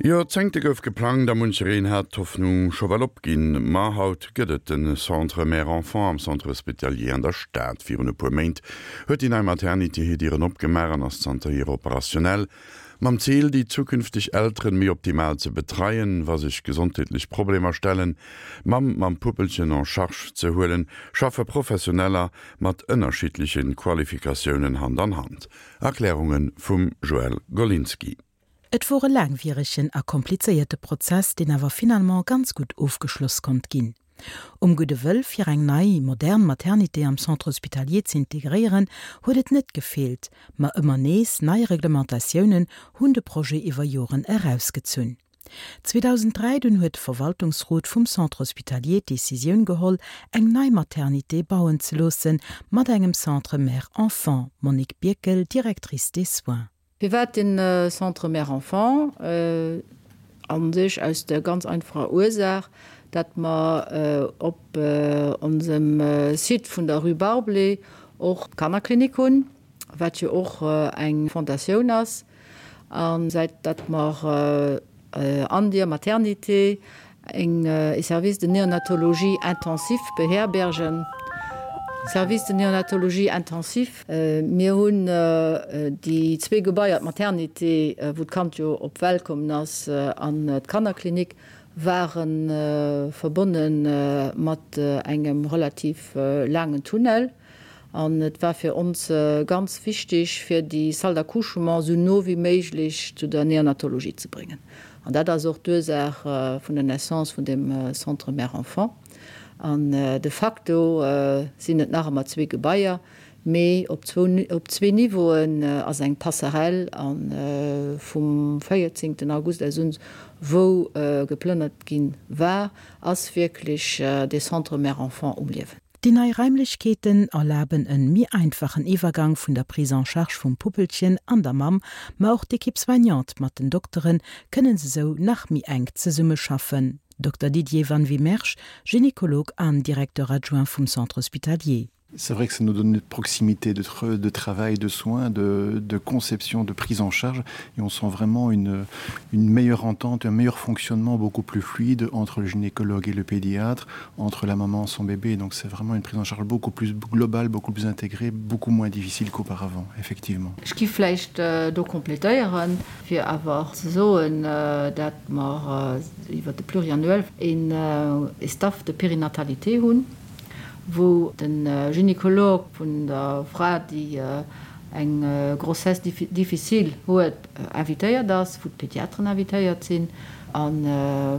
Joerzéngte gouf geplangt a munchereen hat d'Hoffnung scho well opginn. Ma haut gëtt et de Centre Mère-Enfant am Centre Hospitalier an der Stad. Virun e puer Méint huet déi nei Maternité hir Dieren opgemaach an ass zanterhier operationnell. Mam Zil, déi zukünfteg Elteren méi optimal ze betreien, wa sech gesondheetlech Problemer stellen, d'Mamm mam Puppelchen en charge ze huelen, schaffe Professioneller mat ënnerschiddleche Qualifikatiounen Hand an Hand. Erklärunge vum Joëlle Golinski. Et wor e laangwieregen a komplizéierte Prozess, deen awer finalement ganz gutt ofgeschloss konnt ginn. Um gudde Wëll fir eng nei, modern Maternité am Centre hospitalier z'integréieren, huet et net gefeelt, ma ëmmer nees nei Reglementatiounen hunn de Projet iwwer Joren erausgezunn. 2003 dunn huet de Verwaltungsrot vum Centre hospitalier d'Decisioun geholl, eng nei Maternité bauen ze loossen, mat engem Centre mère-enfant, Monique Birkel, Directrice des soins. Firwat den Centre Mère-Enfant? An sech aus der ganz einfacher Ursaach, dat mer op onsem Site vun der Rue Barblé och d'Kannerklinik hunn, wat jo och eng Fondatioun ass. A säit dat mer An dier Maternité eng e Service de néonatologie intensif beherbergen. Service de néonatologie intensif. Mir hunn déi zwee Gebaier, d'Maternité, wou d'Kand jo op d'Welt kommen ass, an d'Kannerklinik, ware verbonne mat engem relativ laangen Tunnel. An et war fir ons ganz wichtig, fir déi Salle d'accouchement esou no wéi méiglech zu der Neonatologie ze bréngen. An dat ass och d'Ursaach vun der Naissance vun deem Centre mère-enfant. An de facto sinn et nach ëmmer zwee Gebaier, mee op op zwee Niveauen ass eng Passerelle. A vum 14 August aus un, wou geplënnert gi war, ass wierklech dee Centre mère-enfant um Liewen. Déi nei Raimlechkeeten erlaben en méi einfachen Iwwergang vun der Prise en charge vum Puppelchen an der Mamm, ma och d'Equipe soignante mat den Dokteren kënnen esou nach méi enk zesummeschaffen. Dokter Didier Van Wymersch, Gynécologue an Directeur adjoint vum Centre hospitalier. C'est vrai que ça nous donne une proximité de, de travail, de soins, de, de conception, de prise en charge et on sent vraiment une, une meilleure entente, un meilleur fonctionnement beaucoup plus fluide entre le gynécologue et le pédiatre, entre la maman et son bébé. Donc c'est vraiment une prise en charge beaucoup plus globale, beaucoup plus intégrée, beaucoup moins difficile qu'auparavant, effectivement. Ech gi vläicht do complétéieren, fir awer ze soen, dat mer iwwert de Pluriannuel een Staff de périnatalité hunn, wou de Gynécologue vun der Fra, déi eng Grossesse difficile huet, invitéiert ass, wou d'Pédiatren invitéiert sinn a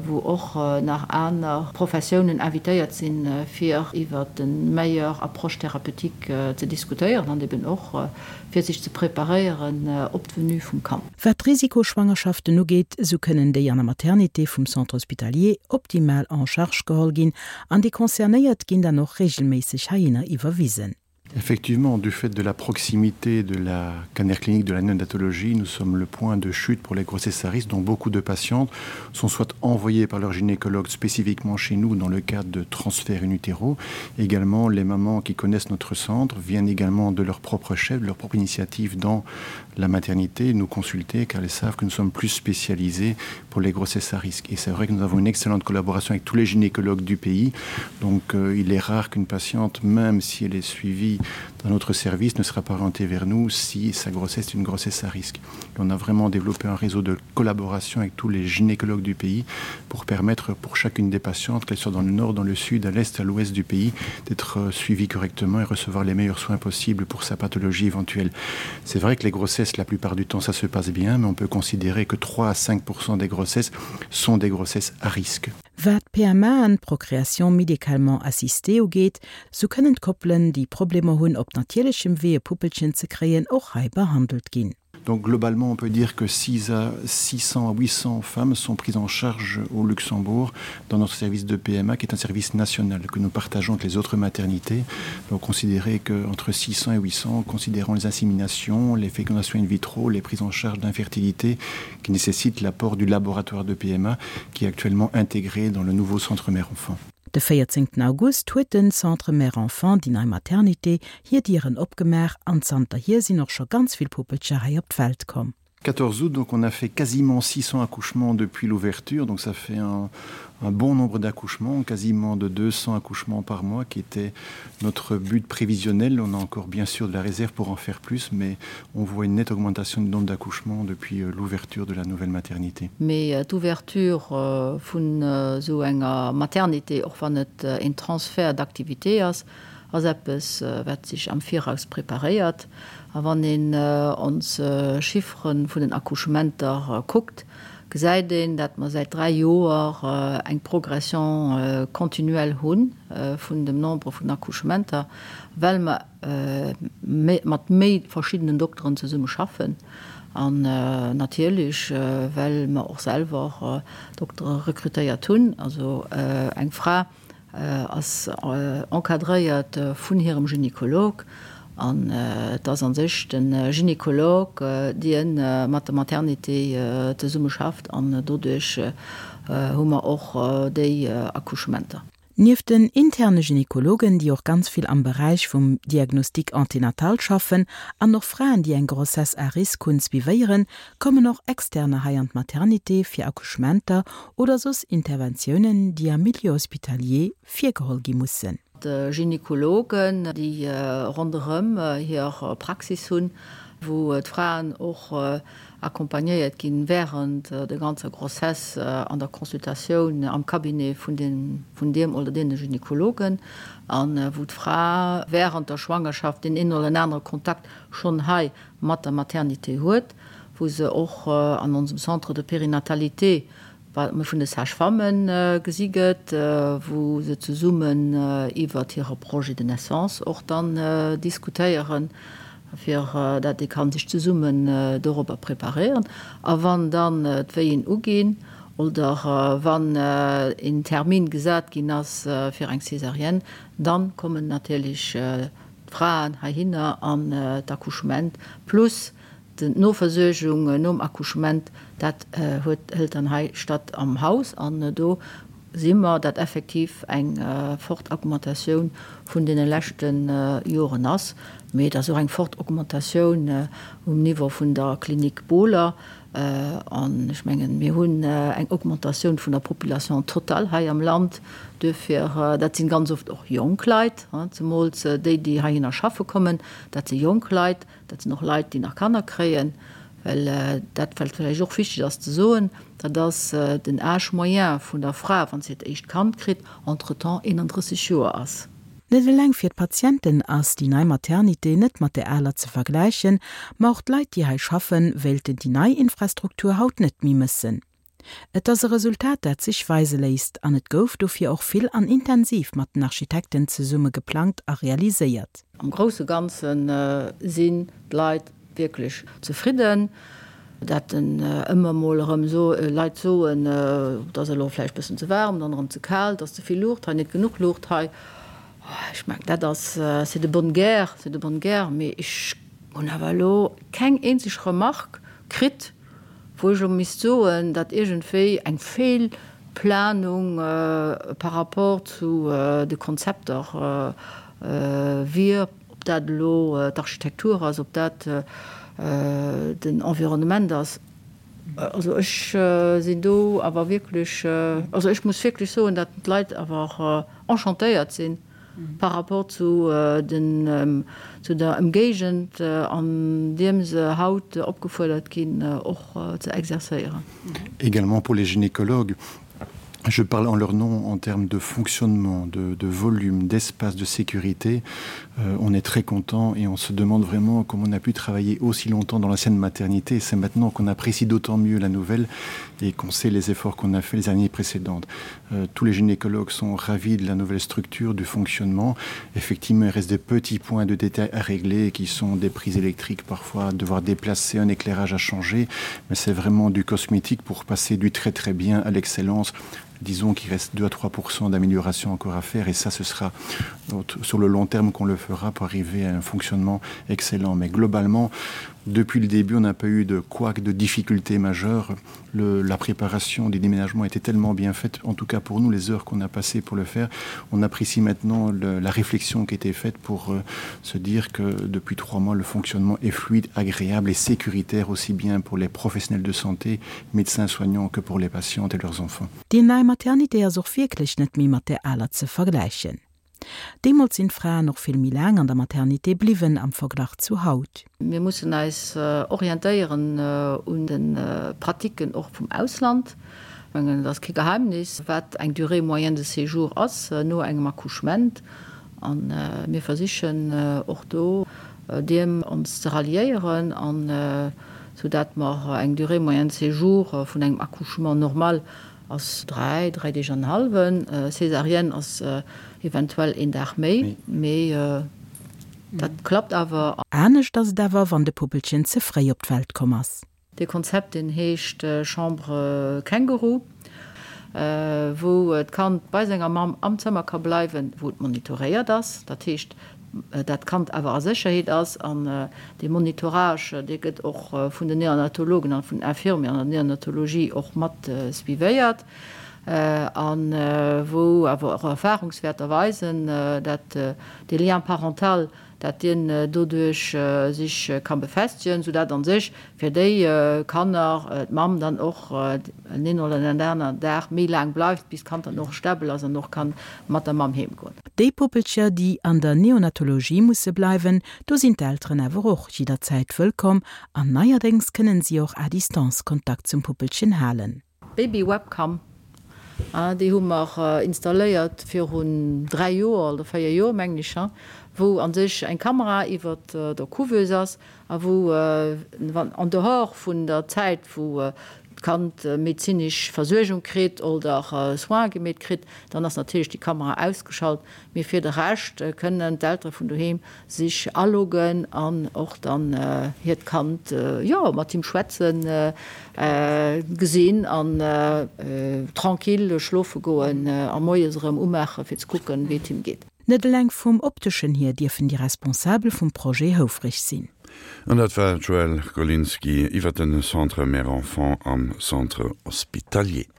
wou och nach aner Professiounen invitéiert sinn, fir iwwer de meilleure approche thérapeutique ze diskutéieren an eben och fir sech ze preparéieren op d'Venue vum Kand. Wat d'Risikoschwangerschaften ugeet, esou kënnen déi an der Maternité vum Centre hospitalier optimal en charge geholl ginn an déi Concernéiert ginn dann och regelméisseg heihinner iwwerwisen. Effectivement, du fait de la proximité de la canère clinique de la néonatologie, nous sommes le point de chute pour les grossesses à risque dont beaucoup de patientes sont soit envoyées par leur gynécologue spécifiquement chez nous dans le cadre de transferts in utero. Également, les mamans qui connaissent notre centre viennent également de leur propre chef, de leur propre initiative dans la maternité nous consulter car elles savent que nous sommes plus spécialisés pour les grossesses à risque. Et c'est vrai que nous avons une excellente collaboration avec tous les gynécologues du pays. Donc euh, il est rare qu'une patiente, même si elle est suivie dans notre service, ne sera pas orientée vers nous si sa grossesse est une grossesse à risque. Et on a vraiment développé un réseau de collaboration avec tous les gynécologues du pays pour permettre pour chacune des patientes, qu'elles soient dans le nord, dans le sud, à l'est, à l'ouest du pays, d'être euh, suivie correctement et recevoir les meilleurs soins possibles pour sa pathologie éventuelle. C'est vrai que les grossesses, la plupart du temps, ça se passe bien, mais on peut considérer que 3 à 5 des grossesses sont des grossesses à risque. Wat d'PMAen, Procréation médicalement assistée, ugeet, sou kënnen d'Koppelen, déi Problemer hunn op natierlechem Wee e Puppelchen ze kréien, och hei behandelt ginn. Donc globalement, on peut dire que 6 à 600 à 800 femmes sont prises en charge au Luxembourg dans notre service de PMA qui est un service national que nous partageons avec les autres maternités. Donc considérer que entre 600 et 800 considérant les inséminations, les fécondations in vitro, les prises en charge d'infertilité qui nécessitent l'apport du laboratoire de PMA qui est actuellement intégré dans le nouveau centre mère enfant. De 14 August huet den Centre Mère Enfant, déi nei Maternité, hir Dieren opgemaach an zanterhier sinn och scho ganz vill Puppelcher hei op d'Welt komm. 14 août donc on a fait quasiment 600 accouchements depuis l'ouverture donc ça fait un, un bon nombre d'accouchements quasiment de 200 accouchements par mois qui était notre but prévisionnel on a encore bien sûr de la réserve pour en faire plus mais on voit une nette augmentation du nombre d'accouchements depuis euh, l'ouverture de la nouvelle maternité mais euh, d'ouverture euh, vun euh, sou enger maternité och wann et euh, een Transfert d'activité ass ass eppes äh, wat sech am Viraus preparéiert a wann een äh, ons äh, Chifferen vun den Accouchementer äh, kuckt, gesäit een, dat mer säit 3 Joer äh, eng Progression äh, continuelle hunn äh, vun dem Nombre vun Accouchementer, well mer äh, mat méi verschiddenen Dokteren zesumme schaffen an äh, natierlech äh, well mer och selwer äh, Doktere rekrutéiert hunn, also äh, eng Fra ass encadréiert vun hirem Gynekolog an et ass a sech de Gynekolog, dien mat der Maternité zesumme schafft an doduerch hu mer och déi Accouchementer. Nieft den interne Gynekologen, déi och ganz vill am Beräich vum Diagnostic anténatal schaffen an och Fraen, déi eng Grossesse à risque hunn, suivéieren, kommen och Externer hei an d'Maternité fir Accouchementer oder soss Interventiounen, déi am Milieu hospitalier virgeholl gi mussen. Gynekologen, déi ronderëm hir Praxis hunn, wou d'Fraen och accompagnéiert ginn während der ganzer Grossesse an der Consultatioun am Cabinet vun deem oder deene Gynekologen, a wou d'Fra während der Schwangerschaft deen een oder anere Kontakt schonn hei mat der Maternité huet, wou se och an onsem Centre de périnatalité wat vun de Sage-femmen gesi gëtt, wou se zesummen iwwert hire Projet de naissance och dann diskutéieren, fir dat ee ka sech zesummen dorobber preparéieren. A wann dann d'Wéien uginn oder wann een Termin gesat ginn ass fir eng Césarienne, dann kommen natierlech d'Fraen heihinner an d'Accouchement plus d'Noversuergung nom Accouchement, dat huet, hëlt dann hei statt am Haus. An do si mer, dat effektiv eng fort Augmentatioun vun deene leschte Joren ass. Mee et ass och eng fort Augmentatioun um Niveau vun der Klinik Bohler. An ech mengen, mir hunn eng Augmentatioun vun der Population totale hei am Land. Duerfir, dat si ganz oft och jonk Leit, zemools déi, déi heihinner schaffe kommen, dat si jonk Leit, dat sinn och Leit, déi nach Kanner kréien. Well dat, wat vläicht och wichteg ass ze soen, dat ass den Âge moyen vun der Fra, wa se hiert éischt Kand kritt, entretemps 31 Joer ass. Net eleng fir d'Patienten ass déi nei Maternité net mat där aler ze vergläichen, ma och d'Leit, déi hei schaffen, wéilten déi nei Infrastruktur haut net méi mëssen. Et ass e Resultat, dat sech weise léisst an et gouf dofir och vill an intensiv mat den Architekten zesumme geplangt a realiséiert. Am grousse Ganze sinn d'Leit wierklech zefridden. Dat en ëmmer mol erëm Leit soen, et ass elo vläicht bëssen ze waarm, dann erëm ze kal, et ass ze vill Luucht hei, net genuch Luucht hei. Ech mengen, dat ass, c'est de bonne guerre, c'est de bonne guerre, mee ech hunn awer elo keng eenzeg Remarque kritt, wou ech elo misst soen, datt iergendwéi eng Feelplanung par rapport zu de Konzepter wier. Ob dat elo d'Architektur ass, ob dat den Environnement ass, also ech sinn do awer wierklech, also ech muss wierklech soen, datt d'Leit awer enchantéiert si par rapport zu den, zu der Ëmgéigend an deem se haut opgefuerdert ginn och ze exercéieren. Également pour les gynécologues. Je parle en leur nom en termes de fonctionnement, de, de volume, d'espace, de sécurité. Euh, on est très content et on se demande vraiment comment on a pu travailler aussi longtemps dans l'ancienne maternité. C'est maintenant qu'on apprécie d'autant mieux la nouvelle et qu'on sait les efforts qu'on a fait les années précédentes. Euh, tous les gynécologues sont ravis de la nouvelle structure du fonctionnement. Effectivement, il reste des petits points de détail à régler qui sont des prises électriques parfois, devoir déplacer un éclairage à changer, mais c'est vraiment du cosmétique pour passer du très très bien à l'excellence disons qu'il reste 2 à 3% d'amélioration encore à faire et ça ce sera sur le long terme qu'on le fera pour arriver à un fonctionnement excellent mais globalement. Depuis le début, on n'a pas eu de quoi de difficultés majeures. Le, la préparation du déménagement était tellement bien faite, en tout cas pour nous, les heures qu'on a passées pour le faire. On apprécie maintenant le, la réflexion qui était faite pour euh, se dire que depuis trois mois, le fonctionnement est fluide, agréable et sécuritaire aussi bien pour les professionnels de santé, médecins soignants que pour les patientes et leurs enfants. Déi nei Maternité ass och wierklech net méi mat där aler ze vergläichen. Deemools sinn d'Fraen och vill méi laang an der Maternité bliwwen am Verglach zu haut. Mir mussen eis orientéieren un de Pratiquen och vum Ausland. Ech mengen, et ass kee Geheimnis, wat eng Durée moyenne de séjour ass no engem Accouchement. A mir versichen och do deem ons ze ralliéieren, an soudatt mer eng Durée moyenne de séjour vun engem Accouchement normal Ass 3, 3 Deeg an en hallwen. Césarienne ass eventuell een Dag méi, mee dat klappt awer. Anescht ass et awer, wann de Puppelchen ze fréi op d'Welt komm ass. Dee Konzept deen heescht Chambre Känguru, wou d'Kand bei senger Mamm am Zëmmer ka bleiwen, wou et monitoréiert ass. Dat heescht, dat d'Kand awer a Sécherheet ass an dee Monitorage, dee gëtt och vun den Neonatologen an vun den Infirmieren an der Neonatologie och mat suivéiert a wou awer och Erfahrungswäerter weisen, dat dee Lien parental, dat dien doduerch sech ka befestigen, soudat a sech fir déi Kanner d'Mamm dann och en een oder en aner Dag méi laang bleift, bis d'Kand dann och stabel ass an och ka mat der Mamm heem goen. Déi Puppelcher, déi an der Neonatologie musse bleiwen, do sinn d'Elteren awer och jidderzäit wëllkomm an neierdéngs kënnen si och à distance Kontakt zum Puppelchen halen. Baby Webcam, déi hu mer installéiert virun 3 Joer oder 4 Joer, mengen ech, wou a sech eng Kamera iwwert der Couveuse ass a wou en dehors vun der Zäit, wou d'Kand medezinesch Versuergung kritt oder Soins gemeet kritt, dann ass natierlech déi Kamera ausgeschalt. Mee fir de Rescht kënnen d'Eltere vun doheem sech aloggen an och dann hiert Kand, jo, mat him schwätzen, gesinn an tranquille schlofe goen a moies erëm umaache fir ze kucken, wéi et him geet. Net eleng vum opteschen hier dierfen déi Responsabel vum Projet houfreg sinn. An dat war d'Joëlle Golinski iwwer de Centre Mère-Enfant am Centre Hospitalier.